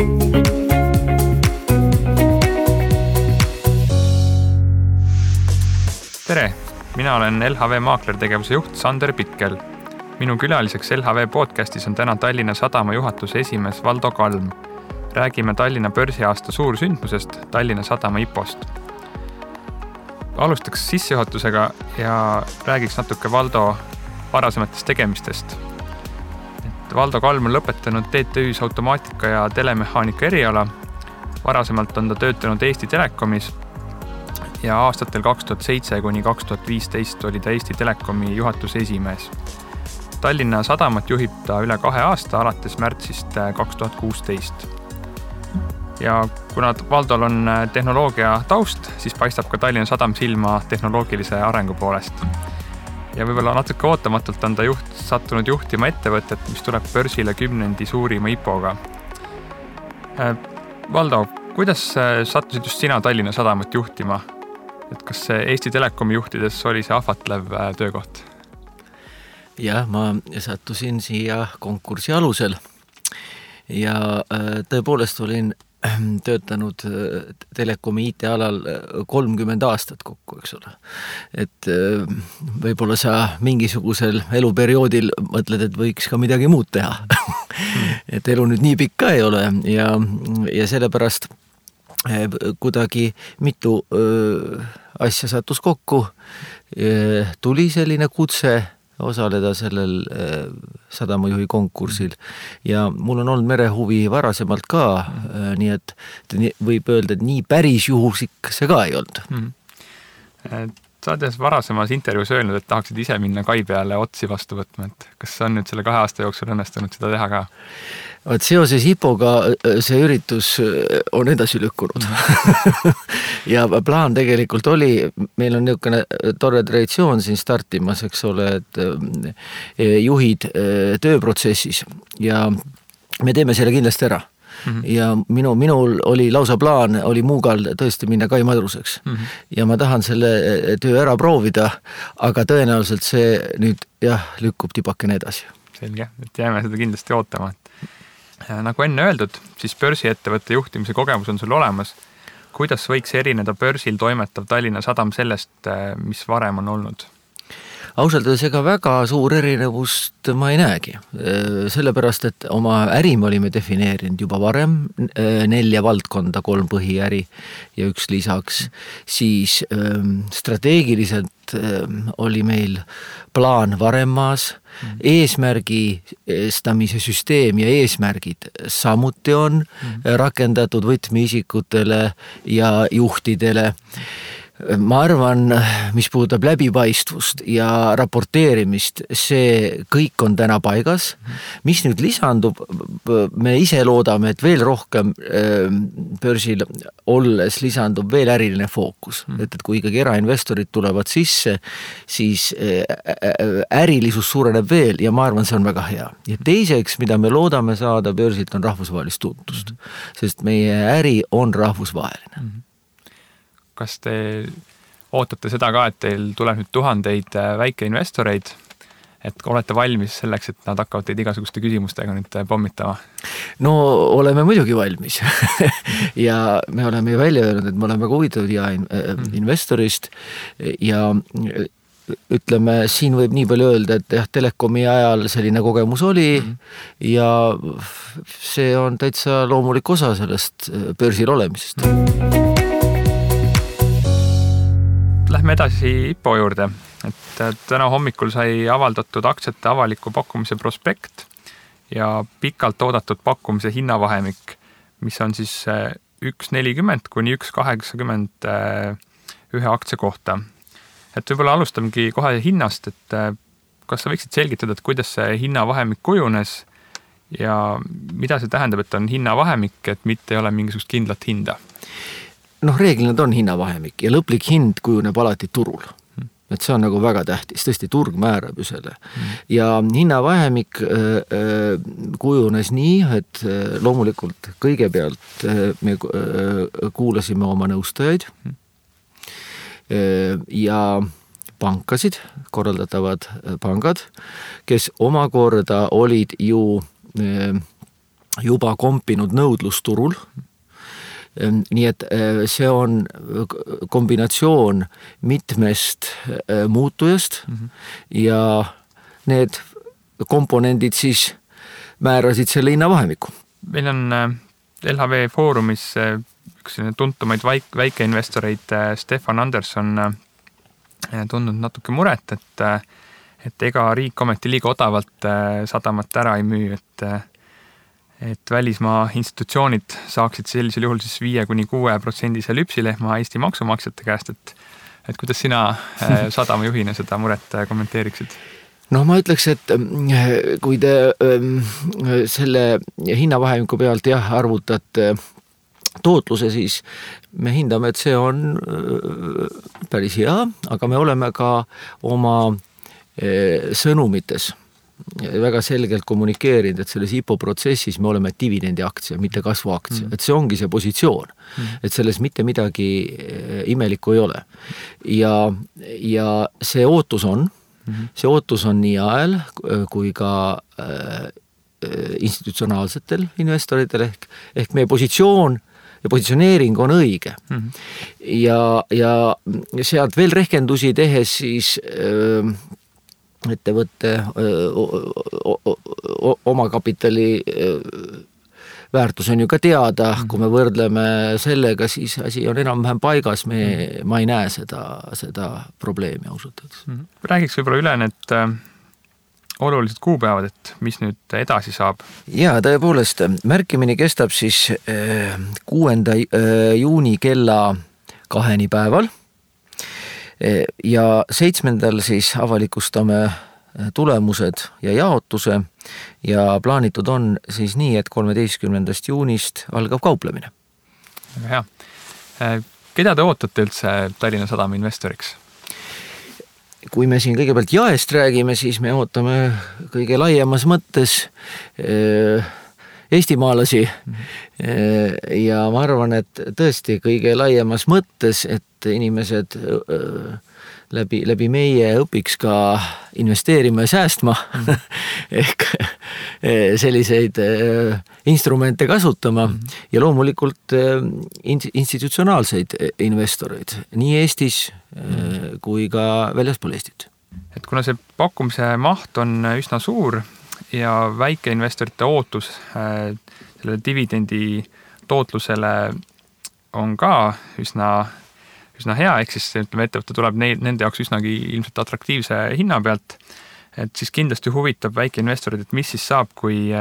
Tere! Mina olen LHV maaklertegevuse juht Sander Pitkel. Minu külaliseks LHV podcastis on täna Tallinna Sadama juhatuse esimees Valdo Kalm. Räägime Tallinna börsiaasta suursündmusest Tallinna Sadama IPO-st. Alustaks sissejuhatusega ja räägiks natuke Valdo varasematest tegemistest. Valdo Kalm on lõpetanud TTÜ-s automaatika ja telemehaanika eriala. Varasemalt on ta töötanud Eesti Telekomis ja aastatel 2007 kuni 2015 oli ta Eesti Telekomi juhatuse esimees. Tallinna Sadamat juhib ta üle 2 aasta alates märtsist 2016. Ja kuna Valdol on tehnoloogia taust, siis paistab ka Tallinna Sadam silma tehnoloogilise arengu poolest. Ja võib-olla natuke ootamatult on ta sattunud juhtima ettevõtet, mis tuleb börsile 10. suurima IPO-ga. Valdo, kuidas sattusid just sina Tallinna Sadamat juhtima? Et kas Eesti Telekomi juhtides oli see ahvatlev töökoht? Jah, ma sattusin siia konkursi alusel ja tõepoolest olin töötanud Telekomi IT-alal 30 aastat kokku, eks ole. Et võib-olla sa mingisugusel eluperioodil mõtled, et võiks ka midagi muud teha. Et elu nüüd nii pikk ka ei ole ja sellepärast kuidagi mitu asja sattus kokku, tuli selline kutse osaleda sellel sadamajuhi konkursil ja mul on olnud merehuvi varasemalt ka, nii et võib öelda, et nii päris juhusik see ka ei olnud. Sa oled varasemas intervjuus öelnud, et tahaksid ise minna kai peale otsi vastu võtma, et kas on nüüd selle 2 aasta jooksul õnnestunud seda teha ka? Seoses IPO-ga see üritus on edasi lükkunud. Ja plaan tegelikult oli, meil on niisugune tore traditsioon siin startimas, eks ole, et juhid tööprotsessis ja me teeme selle kindlasti ära. Ja minul oli lausa plaan, oli Muugal tõesti minna kai madruseks. Ja ma tahan selle töö ära proovida, aga tõenäoliselt see nüüd lükkub tipakene edasi. Selge, et jääme seda kindlasti ootama. Nagu enne öeldud, siis börsiettevõtte juhtimise kogemus on sul olemas. Kuidas võiks erineda börsil toimetav Tallinna Sadam sellest, mis varem on olnud? Ausalt öeldes ega väga suur erinevust ma ei näegi. Sellepärast, et oma äri me olime defineerinud juba varem 4 valdkonda, 3 põhiäri ja 1 lisaks. Siis strateegiliselt oli meil plaan varem maas, eesmärgistamise süsteem ja eesmärgid samuti on rakendatud võtmeisikutele ja juhtidele. Ma arvan, mis puudutab läbipaistvust ja raporteerimist, see kõik on täna paigas. Mis nüüd lisandub, me ise loodame, et veel rohkem börsil olles lisandub veel äriline fookus. Et kui ikkagi erainvestorid tulevad sisse, siis ärilisus suureneb veel ja ma arvan, see on väga hea. Ja teiseks, mida me loodame saada börsilt, on rahvusvahelist tuntust, sest meie äri on rahvusvaheline. Kas te ootate seda ka, et teil tuleb nüüd 1000 väikeinvestoreid, et olete valmis selleks, et nad hakkavad teid igasuguste küsimustega nüüd pommitama? No oleme muidugi valmis ja me oleme välja öelnud, et me oleme väga huvitatud investorist ja ütleme, siin võib nii palju öelda, et Telekomi ajal selline kogemus oli ja see on täitsa loomulik osa sellest börsil olemisest. Lähme edasi IPO juurde, et täna hommikul sai avaldatud aktsiate avaliku pakkumise prospekt ja pikalt oodatud pakkumise hinnavahemik, mis on siis 1.40 kuni 1.80 ühe aktsia kohta. Et võib-olla alustamegi kohe hinnast, et kas sa võiksid selgitada, et kuidas see hinnavahemik kujunes ja mida see tähendab, et on hinnavahemik, et mitte ei ole mingisugust kindlat hinda? Reeglina on hinnavahemik ja lõplik hind kujuneb alati turul. Et see on nagu väga tähtis, tõesti turg määrab ju selle. Ja hinnavahemik kujunes nii, et loomulikult kõigepealt me kuulasime oma nõustajaid ja pankasid, korraldatavad pangad, kes omakorda olid ju juba kompinud nõudlusturul. Nii et see on kombinatsioon mitmest muutujast ja need komponendid siis määrasid selle hinnavahemiku. Meil on LHV Foorumis üks tuntumaid väikeinvestoreid Stefan Anderson tundnud natuke muret, et ega riik ometi liiga odavalt sadamat ära ei müü, et välismaa institutsioonid saaksid sellisel juhul siis 5-6% lüpsilehma Eesti maksumaksjate käest, et kuidas sina sadamajuhina seda muret kommenteeriksid? No ma ütleks, et kui te selle hinnavahemiku pealt arvutate tootluse, siis me hindame, et see on päris hea, aga me oleme ka oma sõnumites väga selgelt kommunikeerinud, et selles IPO protsessis me oleme dividendi aktsia, mitte kasvuaktsia. Et see ongi see positsioon. Et selles mitte midagi imelikku ei ole. Ja see ootus on, nii ajal kui ka institutsionaalsetel investoritel ehk meie positsioon ja positsioneering on õige. Ja sealt veel rehkendusi tehes siis ettevõtte omakapitali väärtus on ju ka teada, kui me võrdleme sellega, siis asi on enam-vähem paigas, ma ei näe seda probleemi ausalt. Räägiks võib-olla üle need olulised kuupäevad, et mis nüüd edasi saab? Ja tõepoolest, märkimine kestab siis 6. juuni kella 2 päeval ja 7. siis avalikustame tulemused ja jaotuse ja plaanitud on siis nii, et 13. juunist algab kauplemine. Hea. Keda te ootate üldse Tallinna Sadama investoriks? Kui me siin kõigepealt jaest räägime, siis me ootame kõige laiemas mõttes eestimaalasi ja ma arvan, et tõesti kõige laiemas mõttes, et inimesed läbi meie õpiks ka investeerima ja säästma ehk selliseid instrumente kasutama ja loomulikult institutsionaalseid investoreid nii Eestis kui ka väljaspool Eestit. Et kuna see pakkumise maht on üsna suur ja väikeinvestorite ootus selle dividendi tootlusele on ka üsna hea, ehk siis ettevõte tuleb nende jaoks üsnagi ilmselt atraktiivse hinna pealt, et siis kindlasti huvitab väikeinvestorid, et mis siis saab, kui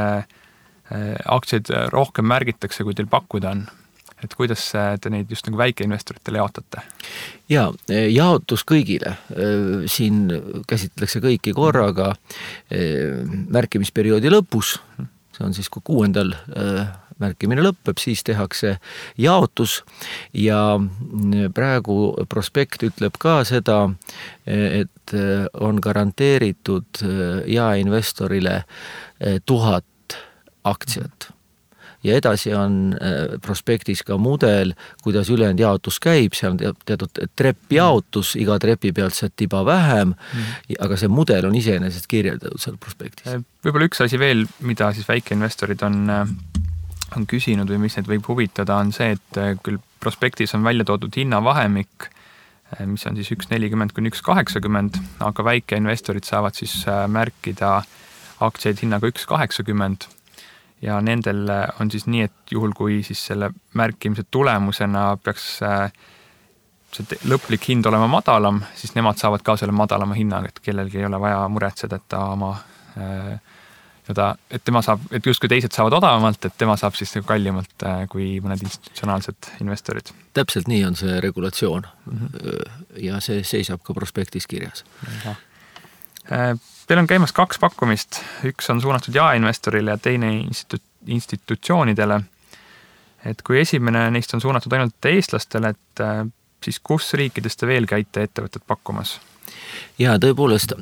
aktsiaid rohkem märgitakse, kui teil pakkuda on. Et kuidas te neid just nagu väikeinvestoritele jaotate? Ja, jaotus kõigile. Siin käsitletakse kõiki korraga märkimisperioodi lõpus, see on siis kui 6. märkimine lõppeb, siis tehakse jaotus ja praegu prospekt ütleb ka seda, et on garanteeritud jaeinvestorile 1000 aktsiat. Ja edasi on prospektis ka mudel, kuidas ülejäänud jaotus käib, see on teatud treppjaotus, iga trepi pealt see tiba vähem, aga see mudel on iseenesest kirjeldatud seal prospektis. Võib-olla üks asi veel, mida siis väikeinvestorid on küsinud või mis neid võib huvitada, on see, et küll prospektis on välja toodud hinnavahemik, mis on siis 1.40–1.80, aga väikeinvestorid saavad siis märkida aktsiaid hinnaga 1.80 ja nendel on siis nii, et juhul kui siis selle märkimise tulemusena peaks see lõplik hind olema madalam, siis nemad saavad ka selle madalama hinnaga, et kellelgi ei ole vaja muretseda, et ta oma et tema saab, et justkui teised saavad odavamalt, et tema saab siis kallimalt kui mõned institutsionaalsed investorid. Täpselt nii on see regulatsioon ja see seisab ka prospektis kirjas. Teil on käimas 2 pakkumist, üks on suunatud jaeinvestorile ja teine institutsioonidele. Et kui esimene neist on suunatud ainult eestlastele, et siis kus riikides te veel käite ettevõtted pakkumas? Ja tõepoolest,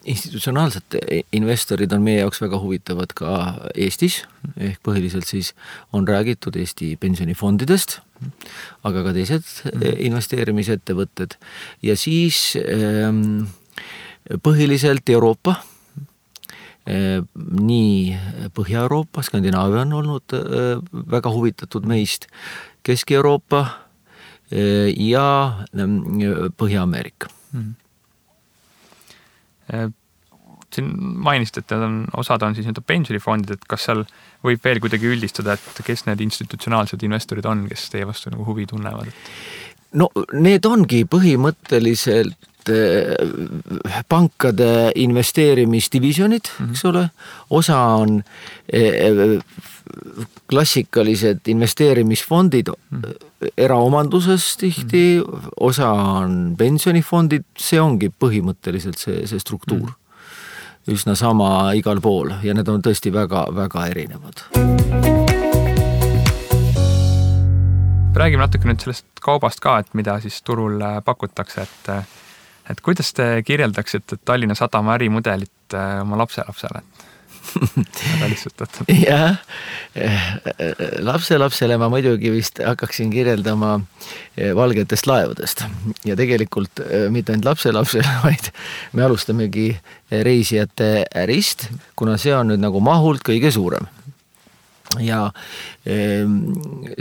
institutsionaalsed investorid on meie jaoks väga huvitavad ka Eestis, ehk põhiliselt siis on räägitud Eesti pensionifondidest, aga ka teised investeerimisettevõtted ja siis põhiliselt Euroopa nii Põhja-Euroopa, Skandinaavia on olnud väga huvitatud meist, Kesk-Euroopa ja Põhja-Ameerika. Siin mainist, et osad on siis pensionifondid, et kas seal võib veel kuidagi üldistada, et kes need institutsionaalsed investorid on, kes teie vastu nagu huvi tunnevad? No need ongi põhimõtteliselt pankade investeerimisdivisionid, eks ole, osa on klassikalised investeerimisfondid eraomanduses tihti, osa on pensionifondid, see ongi põhimõtteliselt see struktuur. Üsna sama igal pool ja need on tõesti väga, väga erinevad. Räägime natuke nüüd sellest kaubast ka, et mida siis turul pakutakse, et kuidas te kirjeldaksite Tallinna Sadama ärimudelit oma lapselapsele? Väga lihtsustatud. Jah, lapselapsele ma muidugi vist hakkaksin kirjeldama valgetest laevadest ja tegelikult mitte ainult lapselapsele, vaid me alustamegi reisijate ärist, kuna see on nüüd nagu mahult kõige suurem. Ja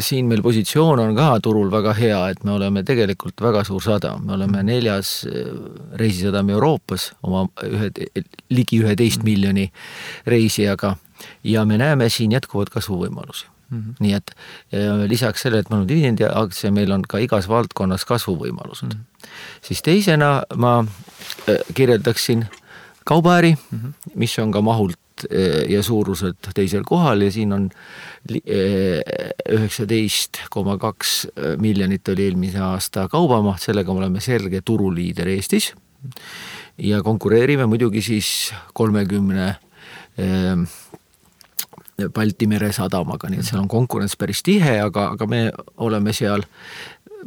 siin meil positsioon on ka turul väga hea, et me oleme tegelikult väga suur sadam. Me oleme 4. reisisadam Euroopas oma ligi 11 miljoni reisijaga ja me näeme siin jätkuvad kasvuvõimalusi. Nii et lisaks sellele, et meil on dividendiaktsia, meil on ka igas valdkonnas kasvuvõimalused. Siis teisena ma kirjeldaksin kaubaäri, mis on ka mahult ja suuruselt teisel kohal ja siin on 19,2 miljonit oli eelmise aasta kaubamaht, sellega me oleme selge turuliider Eestis ja konkureerime muidugi siis 30 Balti mere sadamaga, nii et seal on konkurents päris tihe, aga me oleme seal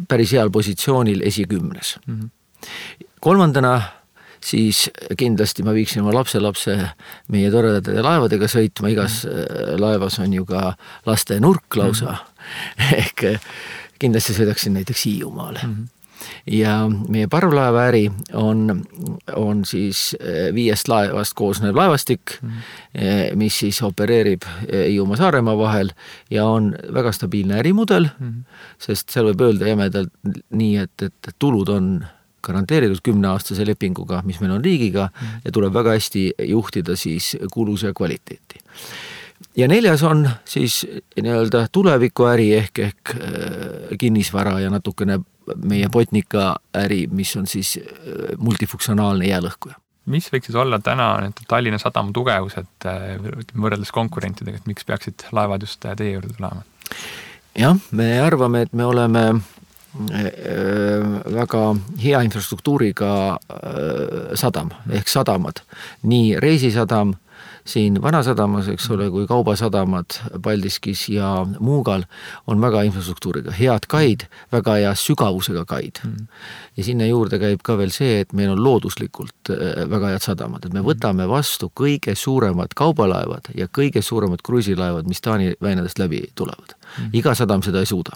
päris heal positsioonil esikümnes. Kolmandana siis kindlasti ma viiksin oma lapselapse meie toredate laevadega sõitma, igas laevas on ju ka laste nurk lausa, ehk kindlasti sõidaksin näiteks Hiiumaale. Ja meie parvlaevaäri on siis 5 laevast koosnev laevastik, mis siis opereerib Hiiumaa Saaremaa vahel ja on väga stabiilne ärimudel, sest seal võib öelda jämedalt nii, et tulud on garanteeritud 10-aastase lepinguga, mis meil on riigiga ja tuleb väga hästi juhtida siis kuluse kvaliteeti. Ja 4. on siis nii-öelda tulevikuäri ehk kinnisvara ja natukene meie Botnica äri, mis on siis multifunktsionaalne jäälõhkuja. Mis võiks siis olla täna Tallinna Sadama tugevused võrreldes konkurentidega, et miks peaksid laevad just teie juurde tulema? Jah, me arvame, et me oleme väga hea infrastruktuuriga sadam ehk sadamad. Nii reisisadam siin Vanasadamas, eks ole, kui kaubasadamad Paldiskis ja Muugal on väga infrastruktuuriga. Head kaid, väga hea sügavusega kaid. Ja sinna juurde käib ka veel see, et meil on looduslikult väga head sadamad. Et me võtame vastu kõige suuremad kaubalaevad ja kõige suuremad kruiisilaevad, mis Taani väinadest läbi tulevad. Iga sadam seda ei suuda.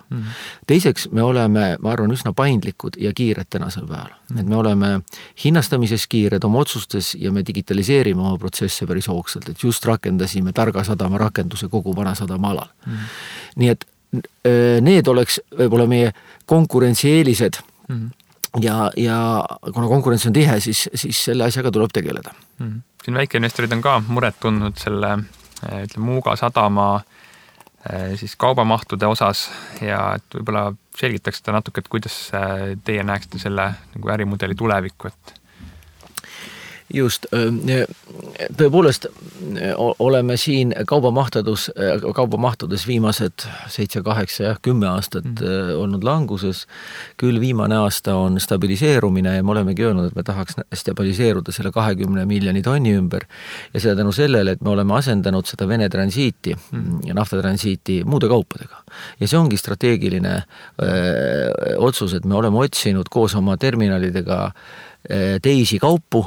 Teiseks me oleme, ma arvan, üsna paindlikud ja kiired tänasel päeval. Et me oleme hinnastamises kiired oma otsustes ja me digitaliseerime oma protsesse päris hoogsalt, et just rakendasime targa sadama rakenduse kogu Vanasadama alal. Nii et need oleks võib-olla meie konkurentsieelised ja kuna konkurents on tihe, siis selle asjaga tuleb tegeleda. Siin väikeinvestorid on ka muret tundnud selle Muuga sadama siis kaubamahtude osas ja et võib-olla selgitaks seda natuke, et kuidas teie näeksite selle nagu ärimudeli tulevikku, et Just, tõepoolest oleme siin kaubamahtudes viimased 7, 8 ja 10 aastat olnud languses. Küll viimane aasta on stabiliseerumine ja me olemegi öelnud, et me tahaks stabiliseeruda selle 20 miljoni tonni ümber ja seda tänu sellele, et me oleme asendanud seda Vene transiiti ja naftatransiiti muude kaupadega. Ja see ongi strateegiline otsus, et me oleme otsinud koos oma terminalidega teisi kaupu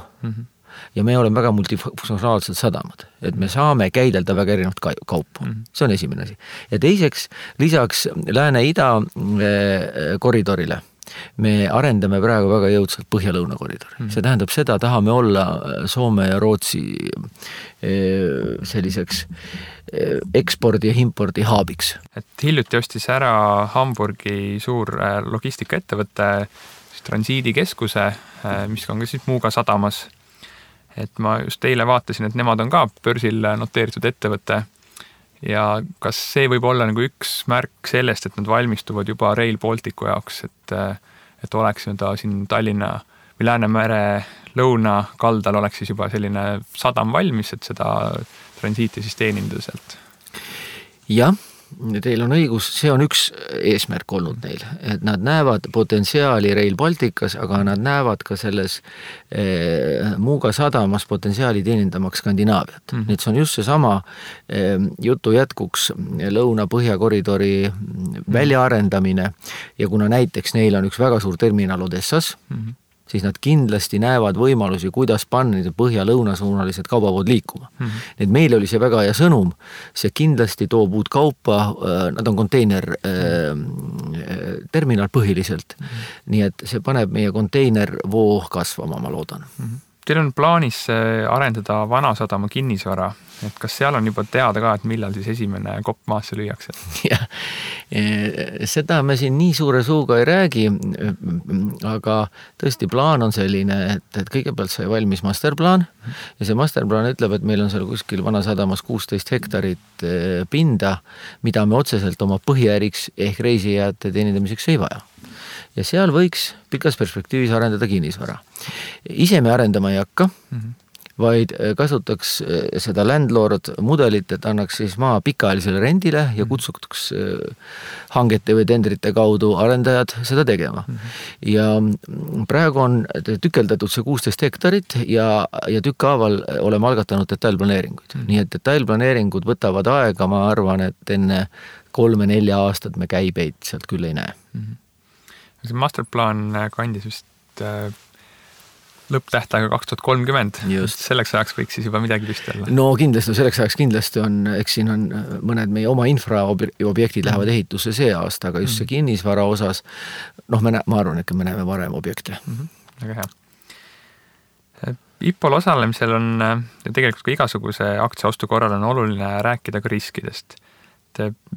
ja me oleme väga multifunktsionaalsed sadamad, et me saame käidelda väga erinevat kaupu. See on esimene asi. Ja teiseks, lisaks Lääne-Ida koridorile me arendame praegu väga jõudsalt Põhja-Lõuna koridori. See tähendab seda, tahame olla Soome ja Rootsi selliseks ekspordi ja impordi haabiks. Et hiljuti ostis ära Hamburgi suur logistikaettevõte transiidikeskuse, mis on ka siis Muuga sadamas. Et ma just eile vaatasin, et nemad on ka börsil noteeritud ettevõte ja kas see võib olla nagu üks märk sellest, et nad valmistuvad juba Rail Balticu jaoks, et oleks ta siin Tallinna või Läänemere lõunakaldal oleks siis juba selline sadam valmis, et seda transiiti siis teenindada sealt. Jah, teil on õigus, see on üks eesmärk olnud neil, et nad näevad potentsiaali Rail Balticas, aga nad näevad ka selles Muuga sadamas potentsiaali teenindamaks Skandinaaviat. Nii et see on just see sama jutu jätkuks Lõuna-Põhja koridori väljaarendamine ja kuna näiteks neil on üks väga suur terminal Odessas, siis nad kindlasti näevad võimalusi, kuidas panna need põhja-lõunasuunalised kaubavood liikuma. Need meil oli see väga hea sõnum, see kindlasti toob uut kaupa, nad on konteiner terminal põhiliselt, nii et see paneb meie konteinervoo kasvama, ma loodan. Teil on plaanis arendada Vanasadama kinnisvara, et kas seal on juba teada ka, et millal siis esimene kopp maasse lüüakse? Jah, seda me siin nii suure suuga ei räägi, aga tõesti plaan on selline, et kõigepealt sai valmis masterplaan ja see masterplaan ütleb, et meil on seal kuskil Vanasadamas 16 hektarit pinda, mida me otseselt oma põhiäriks ehk reisijate teenindamiseks ei vaja. Ja seal võiks pikas perspektiivis arendada kinnisvara. Ise me arendama ei hakka, vaid kasutaks seda landlord mudelit, et annaks siis maa pikaajalisele rendile ja kutsuks hangete või tendrite kaudu arendajad seda tegema. Ja praegu on tükeldatud see 16 hektarit ja tükkaaval oleme algatanud detailplaneeringuid. Nii et detailplaneeringud võtavad aega, ma arvan, et enne 3-4 aastat me käibeid sealt küll ei näe. See masterplaan kandis vist lõpptähtaega 2030. Just. Selleks ajaks võiks siis juba midagi püsti olla. No kindlasti, selleks ajaks kindlasti on, eks siin on mõned meie oma infraobjektid lähevad ehitusse see aasta, aga just see kinnisvara osas, ma arvan, et me näeme varem objekte. Väga hea. IPOL osalemisel on ja tegelikult ka igasuguse aktsiaostu korral on oluline rääkida ka riskidest.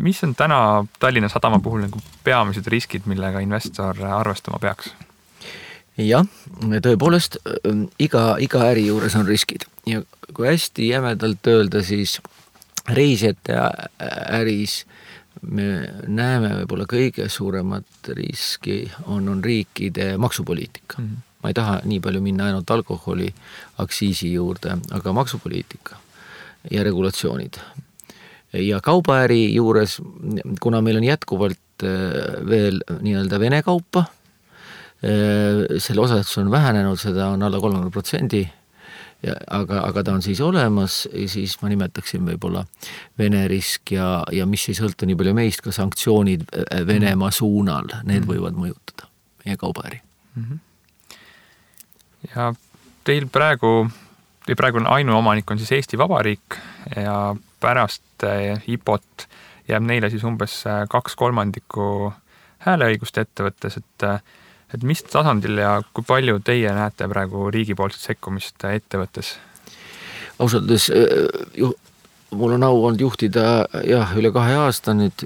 Mis on täna Tallinna sadama puhul nagu peamised riskid, millega investor arvestama peaks? Jah, tõepoolest iga äri juures on riskid ja kui hästi jämedalt öelda, siis reisijate äris me näeme võib-olla kõige suuremat riski on riikide maksupoliitika. Ma ei taha nii palju minna ainult alkoholi aktsiisi juurde, aga maksupoliitika ja regulatsioonid. Ja kaubaäri juures, kuna meil on jätkuvalt veel nii-öelda Vene kaupa, selle osatus on vähenenud, seda on alla 30%, aga ta on siis olemas, siis ma nimetaksin võib-olla Vene risk ja mis ei sõltu nii palju meist, ka sanktsioonid Venemaa suunal, need võivad mõjutada meie kaubaäri. Ja teil praegu ainuomanik on siis Eesti Vabariik ja pärast IPOT jääb neile siis umbes 2/3 hääleõigust ettevõttes, et mis tasandil ja kui palju teie näete praegu riigipoolset sekkumist ettevõttes? Ausalt, mul on au olnud juhtida üle 2 aasta nüüd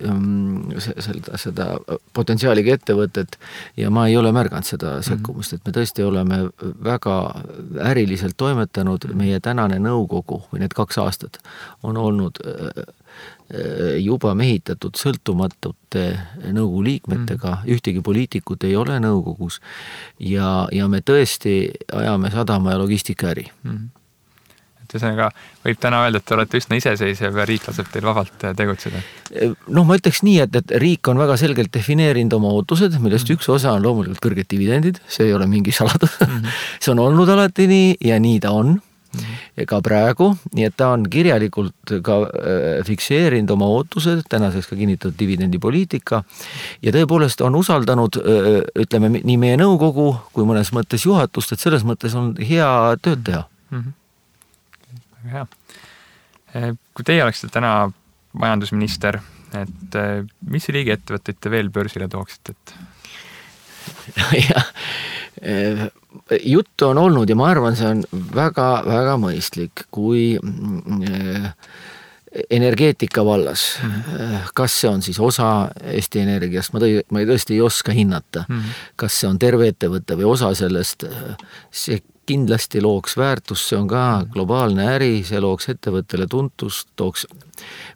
seda potentsiaaliga ettevõtet ja ma ei ole märganud seda sekkumist, et me tõesti oleme väga äriliselt toimetanud, meie tänane nõukogu või need 2 aastat on olnud juba mehitatud sõltumatute nõukogu liikmetega, ühtegi poliitikut ei ole nõukogus ja me tõesti ajame sadama ja logistika äri. Ühesõnaga, võib täna öelda, et te olete üsna iseseisev ja riik laseb teil vabalt tegutseda? Ma ütleks nii, et riik on väga selgelt defineerinud oma ootused, millest üks osa on loomulikult kõrged dividendid, see ei ole mingi saladus. See on olnud alati nii ja nii ta on. Ka praegu, nii et ta on kirjalikult ka fikseerinud oma ootused, tänaseks ka kinnitatud dividendipoliitika ja tõepoolest on usaldanud, ütleme, nii meie nõukogu kui mõnes mõttes juhatust, et selles mõttes on hea tööd teha. Väga hea. Kui teie oleksite täna majandusminister, et mis riigiettevõtteid te veel börsile tooksite? ja juttu on olnud ja ma arvan, see on väga-väga mõistlik, kui energeetika vallas, kas see on siis osa Eesti Energiast, ma tõesti ei oska hinnata, kas see on terve ettevõte või osa sellest, see kindlasti looks väärtust, see on ka globaalne äri, see looks ettevõttele tuntust,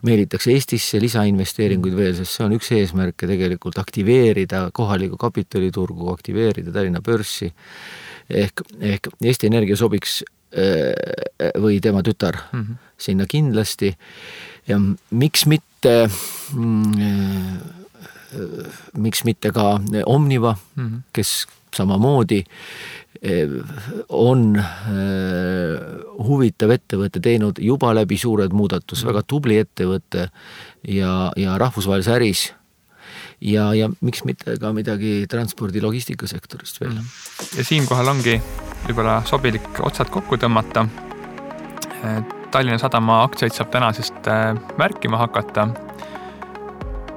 meelitaks Eestisse lisainvesteeringuid veel, sest see on üks eesmärke tegelikult aktiveerida kohalikku kapitaliturgu, aktiveerida Tallinna börsi, ehk Eesti Energia sobiks või tema tütar sinna kindlasti ja miks mitte ka Omniva, kes samamoodi on huvitav ettevõte teinud juba läbi suured muudatus, väga tubli ettevõte ja rahvusvahelise äris ja miks mitte ka midagi transpordi logistikasektorist veel. Ja siinkohal ongi võib-olla sobilik otsad kokku tõmmata. Tallinna Sadama aktsiaid saab tänasest märkima hakata.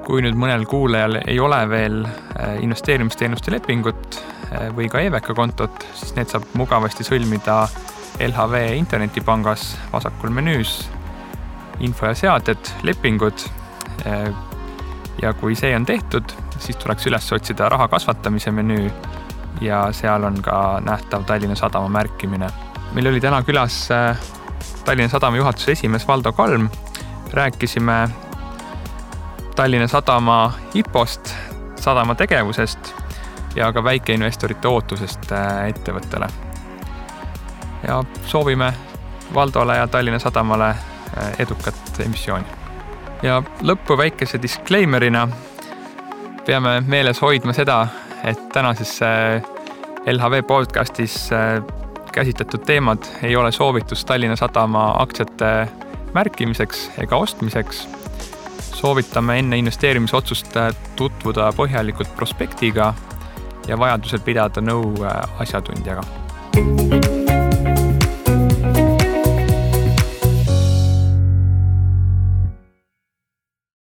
Kui nüüd mõnel kuulajal ei ole veel investeerimisteenuste lepingut või ka EVK kontot, siis need saab mugavasti sõlmida LHV internetipangas vasakul menüüs info ja seaded, lepingud. Ja kui see on tehtud, siis tuleks üles otsida raha kasvatamise menüü ja seal on ka nähtav Tallinna Sadama märkimine. Meil oli täna külas Tallinna Sadama juhatuse esimees Valdo Kalm. Rääkisime Tallinna Sadama IPO-st, sadama tegevusest ja ka väikeinvestorite ootusest ettevõttele. Ja soovime Valdole ja Tallinna Sadamale edukat emissiooni. Ja lõppu väikese disclaimerina peame meeles hoidma seda, et tänases LHV podcastis käsitletud teemad ei ole soovitus Tallinna Sadama aktsiate märkimiseks ega ostmiseks. Soovitame enne investeerimisotsust tutvuda põhjalikult prospektiga ja vajadusel pidada nõu asjatundjaga.